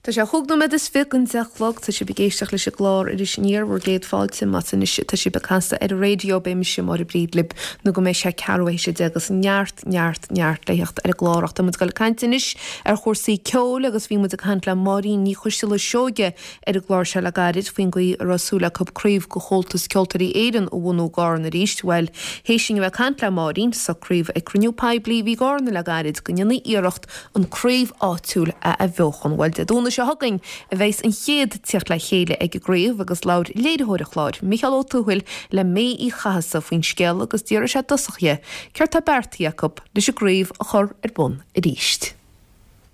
Tá sé chúig nóiméad is 20 don 10 a chlog. Tá sibh ag éisteacht leis an gclár Iris Aniar, bhur gcéad fáilte. Más anois atá sibh ag casadh ar an raidió, beidh mise, Máire Bríd, libh nó go mbeidh sé ceathrú théis 10 agus neart, neart, neart le theacht ar an gclár. Ach tá muid ag dul ag caint anois ar chúrsaí ceoil agus bhí muid ag caint le Máirín Ní Choisteala Seoige ar an gclár seo le gairid faoin gcaoi a raibh súil acu craobh de Chomhaltas Ceoltóirí Éireann a bhunú i gCarna arís. Bhuel, théis dúinn a bheith ag caint le Máirín, socraíodh ag cruinniú poiblí a bhí i gCarna le gairid go ndéanfaí iarracht an craobh áitiúil a athbheochan. Bhuel, Dé Domhnaigh seo chugainn a bheas an chéad tíocht le chéile ag an gcraobh agus labhair léiritheoir an chláir, Micheál Ó Tuathail, le May Uí Chathasaigh faoin scéal agus d'fhiafraigh sé i dtosach dhi céard tá beartaithe acu leis an gcraobh a chur ar bun arís.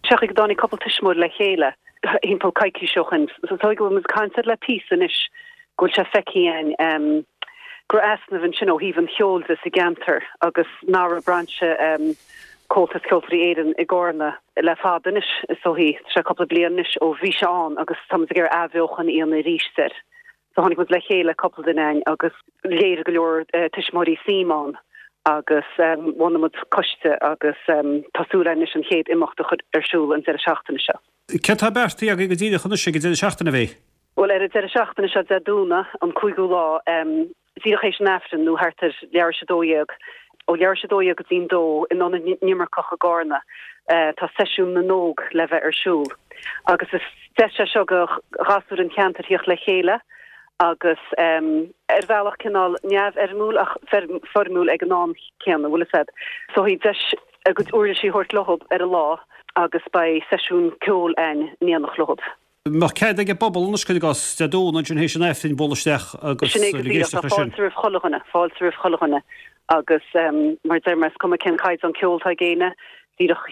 Sé an chaoi go dtáinig cúpla tuismitheoir le chéile thimpeall coicís ó shin. So is dóigh go bhfuil muid ag caint air le píosa anois, go bhfuil sé feicthe againn go raibh easnamh ansin ó thaobh an cheoil de sa gceantar agus nach raibh brainse Comhaltas Ceoltóirí Éireann i gCarna le fada anois, is dóichí. Tá sé cúpla bliain anois ó bhí sé ann agus tá muid ag iarraidh athbheochan a dhéanamh arís air. So tháinig muid le chéile, cúpla duine againn, agus léirigh go leor tuismitheoirí suim ann agus bhunaigh muid coiste agus tá súil againn anois an chéad imeacht a chur ar siúl an deireadh seachtaine seo. Céard tá beartaithe agaibh go díreach anois ag an deireadh seachtaine, a Mhay? Bhuel, ar an deireadh seachtaine seo, Dé Domhnaigh, an cúigiú lá, díreach théis an Aifrinn, nó thart ar leathuair théis 12, ó leathuair théis 12 go dtí'n dó, in Ionad na nImirceach i gCarna, tá Seisiún na nÓg le bheith ar siúl. Agus is deis é seo do ghasúir an cheantair thíocht le chéile agus ar bhealach cineál neamhfhoirmiúil ach foirmiúil ag an am céanna, bhfuil fhios a'd. So deis a gcuid uirlisí a thabhairt leothab ar an lá agus beidh seisiún ceoil a'inn in éineacht leothab. mbeadh cead ag an bpobal anois, cuir i gcás, Dé Domhnaigh ansin théis an Aifrinn bualadh isteach agus Sin é go ag díreach, tá éisteacht leis sin. fáilte roimh chuile dhuine, fáilte roimh chuile dhuine agus mar a deir mé, is cuma cén caighdeán ceoil atá ag éinne, díreach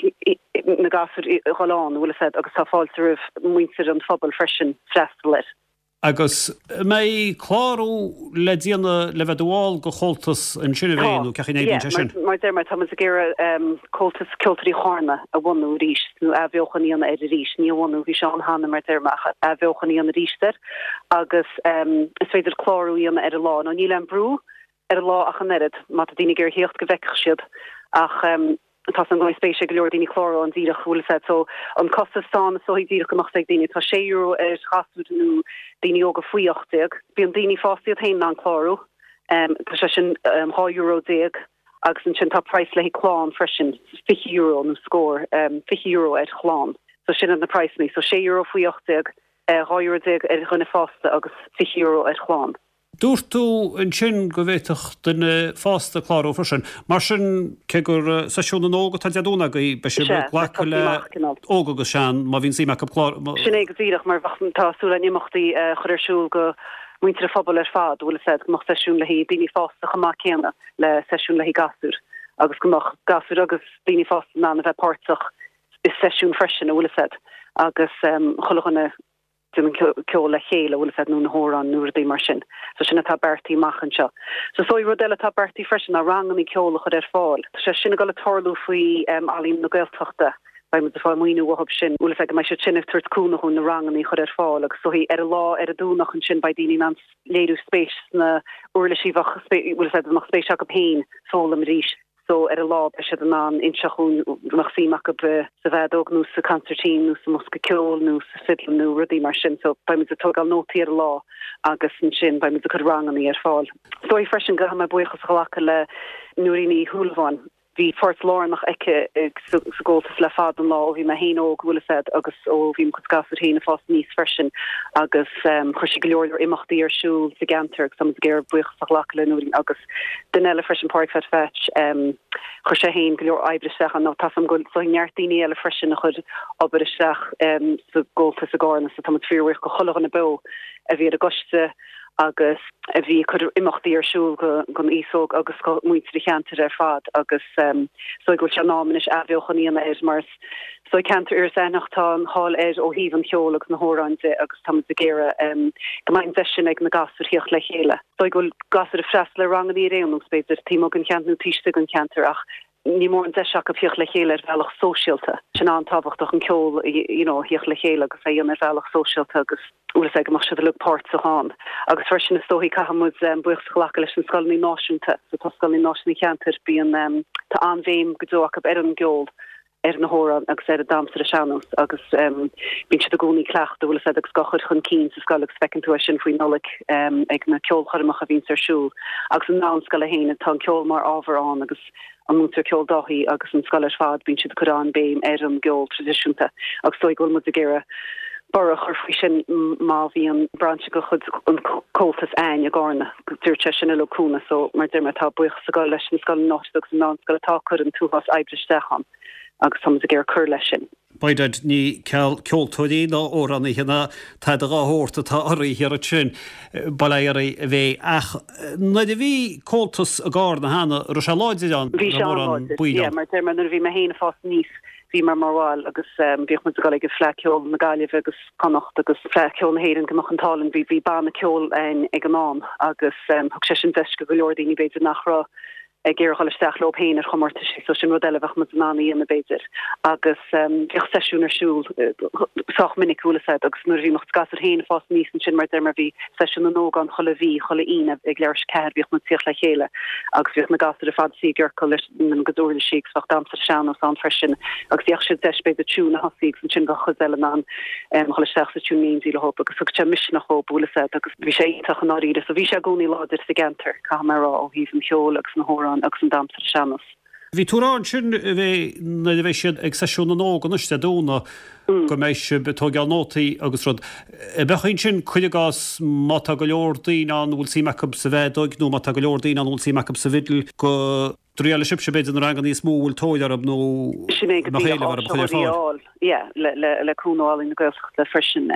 na gasúir a dhul ann, bhfuil fhios a'd, agus tá fáilte roimh muintir an phobail freisin freastal air. Agus an mbeidh clárú le déanamh le bheith i do bhall de Chomhaltas ansin a Mhay Tá, nó cén chaoi a n-oibríonn yeah, sé sin? mar deir mé, tá muid ag iarraidh Comhaltas Ceoltóirí Charna a bhunú arís, nó athbheochan a dhéanamh air arís, ní a bhunú, bhí sé ann cheana mar deir mé, ach athbheochan a dhéanamh arís air agus is féidir clárú a dhéanamh ar an lá. Nó níl aon brú ar an lá ach an oiread, má tá daoine ag iarraidh theacht go bhfeicfeadh siad ach tá 's agam go mbeidh spéis ag go leor daoine clárú ann díreach, bhfuil fhios a'd. So an costas atá ann is dóichí díreach go mbeadh 's ag daoine, tá sé euro ar ghasúir nó daoine óga faoi 18. Bíonn daoine fásta iad féin in ann clárú, tá sé sin 12 euro agus ansin tá praghas le haghaidh clann freisin, €20 nó scór, €20 ar chlann. So sin iad na praghsanna, so €6 faoi 18, €12 euro ar dhuine fásta agus €20 ar chlann. Dúirt tú ansin go bhféadfadh duine fásta clárú freisin. Mar sin, cé gur seisiún na n-óg atá Dé Domhnaigh agaibh, beidh sibh ag glacadh le óg agus sean má bhíonn suim acu clárú. Sin é go díreach, mar bheadh, tá súil againn imeachtaí a chur ar siúl go muintir an phobail ar fad, bhfuil fhios a'd, go mbeadh seisiún le haghaidh daoine fásta chomh maith céanna le seisiún le haghaidh gasúir agus go mbeadh gasúir agus daoine fásta in ann a bheith páirteach i seisiún freisin, a bhfuil fhios a'd, agus chuile dhuine. déanamh ceol le chéile, bhfuil fhios a'd, nó na hamhráin nó rudaí mar sin. So sin atá beartaithe amach anseo. So is dóigh rud eile atá beartaithe freisin ná rangannaí ceoil a chur ar fáil. Tá sé sin ag dul ag tarlú faoi Ealaín na Gaeltachta. Beidh muid ag fáil maoiniú uathub sin. Bhfuil fhios a'd go mbeidh siad sin ag tabhairt cúnamh dhúinn na rangannaí a chur ar fáil agus is dóigh ar an lá ar an Domhnach ansin beidh daoine in ann léiriú spéis sna uirlisí bheadh bhfuil fhios a'd a mbeadh spéis acu féin foghlaim arís. so ar an lá beidh siad in ann inseacht dhúinn an mbeadh suim acu sa bhfeadóg nó sa consairtín nó sa mbosca ceoil nó sa fidil nó rudaí mar sin so beidh muid ag tógáil nótaí ar an lá agus ansin beidh muid ag cur rangannaí ar fáil. Is dóigh freisin go gcaithfidh mé buíochas a ghlacadh le Nóirín Uí Shúilleabháin. Bhí páirt lárnach aici sa gComhaltas le fada an lá ó bhí mé féin óg, bhfuil fhios a'd, agus ó bhí mo chuid gasúir féin ag fás aníos freisin agus chuir sí go leor leor imeachtaí ar siúl sa gceantar agus tá muid ag iarraidh buíochas a ghlacadh le Nóirín agus Duine eile freisin, Pádraig Pheaid Pheaits, chuir sé féin go leor oibre isteach ann. Tá 's agam go bhfuil neart daoine eile freisin a chuir obair isteach sa gComhaltas i gCarna so tá muid fíorbhuíoch go chuile dhuine beo a bhí ar an gcoiste agus a bhí ag cur imeachtaí ar siúl don aos óg agus do mhuintir an cheantair ar fad agus is dóigh go bhfuil sé in am anois athbheochan a dhéanamh air mar is dóigh ceantar Iorras Aithneach tá an cháil air ó thaobh an cheoil agus na hamhráin de agus tá muid ag iarraidh go mbeidh an deis sin ag na gasúir theacht le chéile. Is dóigh go bhfuil gasúir ag freastal ar rangannaí ar aon nós, b'fhéidir, taobh amuigh den cheantar nó taobh istigh den cheantar ach ní mórán deis acu theacht le chéile ar bhealach sóisialta. Sin an-tábhachtach, an ceol you know a theacht le chéile agus é a dhéanamh ar bhealach sóisialta agus bhfuil fhios a'd go mbeadh siad uilig páirteach ann. Agus freisin is dóichí caithfidh muid buíochas a ghlacadh leis na scoileanna náisiúnta. So tá scoileanna náisiúnta an cheantair, bíonn, tá an-bhéim go deo acu ar an gceol. ar na hamhráin agus ar an damhsa ar an sean-nós agus bíonn siad i gcónaí ag cleachtadh, bhfuil a fhios agat, agus á chur chun cinn sa scoil agus feiceann tú é sin faoi Nollaig ag na ceolchoirmeacha a bhíonns ar siúl agus an mheánscoil féin, tá an ceol mar ábhar ann agus an múinteoir ceoil Dáithí agus an scoil ar fad, bíonn siad ag cur an-béim ar an gceol traidisiúnta agus is dóigh go bhfuil muid ag iarraidh borradh a chur faoi sin má bhíonn brainse de chuid an Comhaltas a'ainn i gCarna. Dúirt sé sin uilig cúnamh so mar deir mé tá buíochas ag dul leis na scoileanna áitiúla agus an mheánscoil atá ag cur an t-uafás oibre isteach ann agus tá muid ag iarraidh cur leis sin. By dad, ní ceal ceoltóirí ná amhránaithe ná tada dhá shórt atá oraibh thiar ansin, bail ó Dhia oraibh a bheidh. Ach nuair a bhí Comhaltas i gCarna cheana, raibh sé láidir ann, Bhí sé an-láidir, yeah, mar deir mé nuair a bhí mé féin ag fás aníos bhí mé mar bhall agus bhíodh muid ag dul ag an Fleadh Ceoil na Gaillimhe agus Connacht agus Fleadh Ceoil na hÉireann go mbeadh an t-ádh linn. Bhí bhí banna ceoil a'ainn ag an am agus thug sé sin deis go go leor daoine b'fhéidir nach raibh ag iarraidh dhul isteach leo féin ar chomórtaisí so sin rud eile a bheadh muid in ann a dhéanamh b'fhéidir. Agus bhíodh seisiún ar siúl sách minic bhfuil a fhios a'd agus nuair a bhí mo chuid gasúir féin ag fás aníos ansin mar deir mé bhí seisiún na n-óg ann chuile mhí, chuile Aoine ag leathuair tar éis 4 bhíodh muid ag tíocht le chéile agus bhíodh na gasúir ar fad suí i gciorcal leis na gcuid uirlisí agus bheadh damhsa ar an sean-nós ann freisin agus bheadh siad deis b'fhéidir tiún a thosaí agus ansin bheadh cuid eile in ann dhul isteach sa tiún in éindí leo agus thug sé misneach dhóibh bhfuil a fhios a'd agus bhí sé iontach i ndáiríre so bhí sé i gcónaí láidir sa gceantar caithfidh mé a rá ó thaobh an cheoil agus na hamhráin agus an damhsa ar an sean-nós. Bhí tú ag rá ansin a bheidh nuair a bheidh siad ag seisiún na n-óg anois Dé Domhnaigh go mbeidh sibh ag tóigeáil nótaí agus rud. An mbeadh ansin, cuir i gcás, má tá go leor daoine ann a bhfuil suim acu sa bhfeadóig nó má tá go leor daoine ann a bhfuil suim acu sa bhfidil go dtriailfidh sibhse b'fhéidir na ranganna níos mó a bhfuil tóir orthu nó Sin é go mbeadh éileamh orthu a chur ar fáil. Yeah, le, le, le cúnamh Ealaín na Gaeltachta freisin.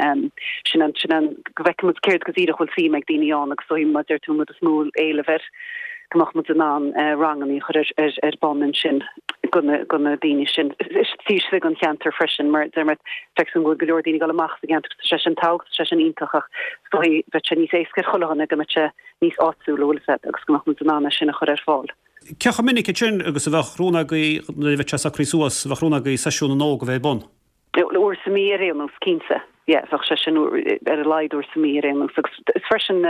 Sin an, sin an, go bhfeicfidh muid céard go díreach bhfuil suim ag daoine ann agus is dóigh mar deir tú an rud is mó éileamh air go mbeadh muid in ann ranganna a chur ar, ar, ar bun ansin go na, go na daoine sin. Taobh istigh den cheantar freisin mar deir mé feictear dom go bhfuil go leor daoine ag dul amach as an gceantar tá sé sin tábhachtach, tá sé sin iontach ach is dóigh bheadh sé níos éasca ar chuile dhuine go mbeadh sé níos áitiúla, bhfuil a fhios a'd, agus go mbeadh muid in ann é sin a chur ar fáil. Cé chomh minic ansin agus a bheadh rún agaibh, nuair a bheidh sé socraithe suas, a bheadh rún agaibh seisiún na n-óg a bheith ar bun? Uair sa mhí ar aon nós, cinnte. Yeah, bheadh sé sin ar a laghad uair sa mhí ar aon nós. Agus is freisin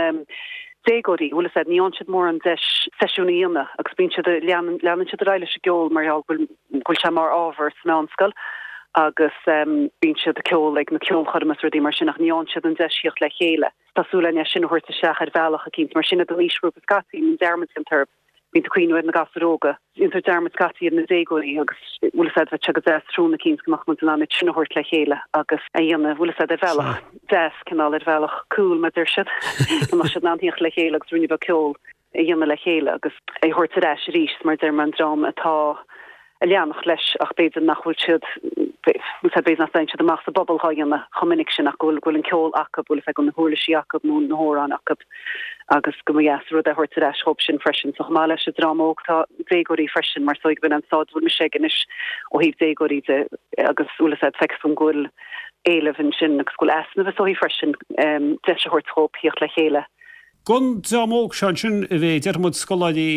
déagóirí, bhfuil a fhios a'd, ní fhaigheann siad mórán deis seisiún a dhéanamh agus bíonn siad, leanann, leanann siad ar aghaidh leis an gceol mar gheall go bhfuil, go bhfuil sé mar ábhar sa mheánscoil agus bíonn siad ag ceol ag na ceolchoirmeacha is rudaí mar sin ach ní fhaigheann siad an deis theacht le chéile. Tá súil againn é sin a thabhairt isteach ar bhealach eicínt, mar sin iad an aoisghrúpa scaití, mbíonn dearmad déanta orthu. Bíonn tú ag cuimhniú ar na gasúir óga. Déantar dearmad scaití ar na déagóirí agus bhfuil fhios a'd, bheadh sé go deas tráthnóna eicínt go mbeadh muid in ann iad sin a thabhairt le chéile agus a dhéanamh, bhfuil fhios a'd, ar bhealach deas, cineál ar bhealach cool, mar deir siad, go mbeadh siad in ann theacht le chéile agus ruainne beag ceoil a dhéanamh le chéile agus é a thabhairt ar ais arís mar deir mé an dream atá ag leanacht leis ach b'fhéidir nach bhfuil siad b'fhéidir nach dtéann siad amach sa bpobal dhá dhéanamh chomh minic sin ach go bhfuil go bhfuil an ceol acu, bhfuil fhios a'd, na huirlisí acu nó na hamhráin acu agus go mba dheas an rud é a thabhairt ar ais dhóibh sin freisin. So chomh maith leis an dream óg tá déagóirí freisin mar is dóigh go b'in an stáid a bhfuil mise ag anois ó thaobh déagóirí de agus bhfuil fhios a'd feictear dom go bhfuil éileamh ansin agus go bhfuil easnamh is dóigh freisin deis a thabhairt dhóibh theacht le chéile. Don dream óg seo ansin a bheidh, déarfaidh muid, scoláirí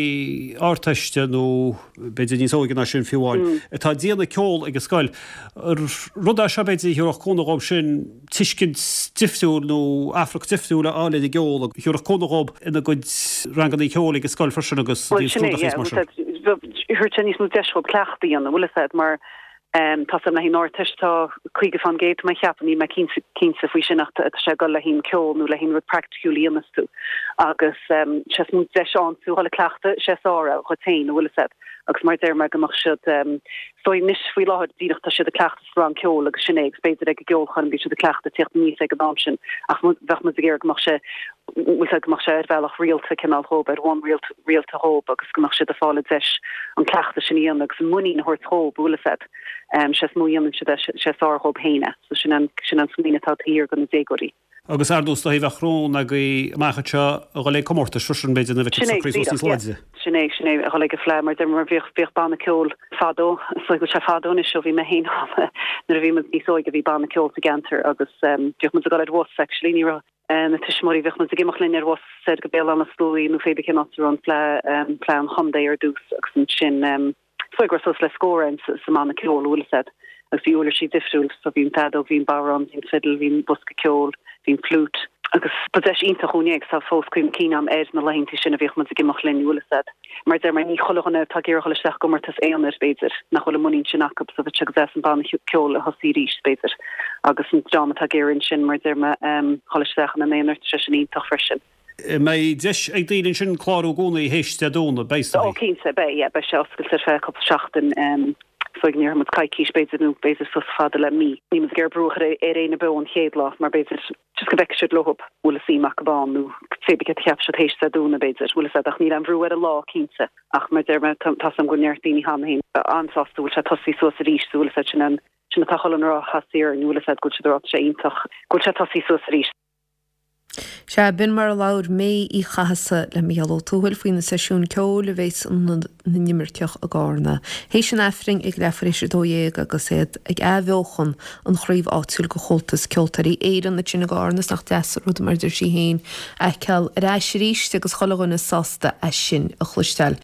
Ardteiste nó b'fhéidir níos óige ná sin fiú amháin, atá ag déanamh ceol ag an scoil, rud é seo b'fhéidir a thabharfadh cúnamh dhóibh sin tuiscint difriúil nó afrac difriúil a fháil ar an gceol a thabharfadh cúnamh dhóibh ina gcuid ranganna ceoil ag an scoil freisin agus Bhuel sin é, yeah, bhfuil fhios a'd, thabharfadh sé níos mó deis dhóibh cleachtadh a dhéanamh, bhfuil fhios a'd, mar Tá fhios a'm le haghaidh an Ardteist tá 50% tá mé ag ceapadh, níl mé cinnte cinnte faoi sin ach tá sé ag dul le haghaidh an ceol nó le haghaidh an rud praiticiúil a dhéanas tú agus sé is mó deis a fhaigheann tú dhul ag cleachtadh sé is fearr é dhuit féin an bhfuil fhios a'd agus mar a deir mé go mbeadh siad is dóigh anois faoi láthair díreach tá siad ag cleachtadh sa rang ceoil agus sin é agus b'fhéidir ag an gceolchoirm bíonn siad ag cleachtadh tíocht aníos ag an am sin ach bheadh muid ag iarraidh go mbeadh sé bhfuil fhios a'd go mbeadh sé ar bhealach rialta cineál dhóibh, ar bhonn rialta dhóibh agus go mbeadh siad ag fáil an deis an cleachtadh sin a dhéanamh agus an muinín a thabhairt dhóibh, bhfuil fhios a'd. Sé is mó a dhéanann siad é, sé is fearr dhóibh féin é. So sin an, sin an smaoineamh atá taobh thiar do na déagóirí. Agus ar ndóigh is dóigh bheadh rún agaibh amach anseo a dhul ag comórtais freisin b'fhéidir nuair a bheidh siad socraithe suas níos láidre. Sin é, sin é, a dhul ag an Fleadh mar deir mar bhíodh, bhíodh banna ceoil fadó, is dóigh go bhfuil sé fadó anois ó bhí mé féin ann, nuair a bhí muid níos óige bhí banna ceoil sa gceantar agus bhíodh muid ag dul ar bhus actually, ní raibh, na tuismitheoirí, bhíodh muid ag imeacht linn ar bhus soir go Béal Átha na Sluaighe nó pé bith cén áit a raibh an fleadh, fleadh an chontae ar dtús agus ansin is dóigh go raibh suas le scór againn sa mbanna ceoil, bhfuil fhios a'd, agus bhí uirlisí difriúil, so bhí an feadóg, bhí an bodhrán, bhí an fiddle, bhí an bosca ceoil, bhí an flute. Agus ba deis iontach dhúinn é agus tá fós cuimhne cinn agam ar na laethanta sin a bhíodh muid ag imeacht linn, bhfuil fhios a'd. Mar a deir mé, ní chuile dhuine atá ag iarraidh dhul isteach i gcomórtas aonair, b'fhéidir, nach bhfuil an muinín sin acu so bheadh sé go deas an banna ceoil a thosaí arís, b'fhéidir. Agus an dream atá ag iarraidh ansin, mar a deir mé, dhul isteach ina n-aonar, tá sé sin iontach freisin. Mbeidh deis ag daoine ansin clárú i gcónaí théis Dé Domhnaigh, beidh is dóigh? Ó cinnte, beidh, yeah, beidh sé oscailte ar feadh cúpla seachtain. So go ndéarfaidh muid coicís b'fhéidir nó b'fhéidir suas fada le mí. Níl muid ag iarraidh brú a chur ar éinne beo an chéad lá mar b'fhéidir just go bhfeicfidh siad leo bhfuil a suim acu ann nó cibé céard a cheapfaidh siad théis Dé Domhnaigh b'fhéidir, bhfuil fhios a'd ach níl aon bhrú ar an lá cinnte ach mar deir mé tá 's a'm go bhfuil neart daoine cheana féin an-sásta go bhfuil sé tosaithe suas arís so bhfuil fhios a'd sin an sin atá chuile dhuine a rá theastaigh orainn bhfuil fhios a'd go bhfuil siad ag rá tá sé iontach go bhfuil sé tosaithe suas arís. Sea, b'in mar a labhair May Uí Chathasaigh le Mícheál Ó Tuathail faoi na seisiúin ceoil a bheas in Ionad na nImirceach i gCarna théis an Aifrinn ag leathuair théis 12 agus iad ag athbheochan an chraobh áitiúil de Chomhaltas Ceoltóirí Éireann ansin i gCarna. Is nach deas an rud mar a deir sí féin a fheiceáil ar ais arís agus chuile dhuine sásta é sin a chloisteáil.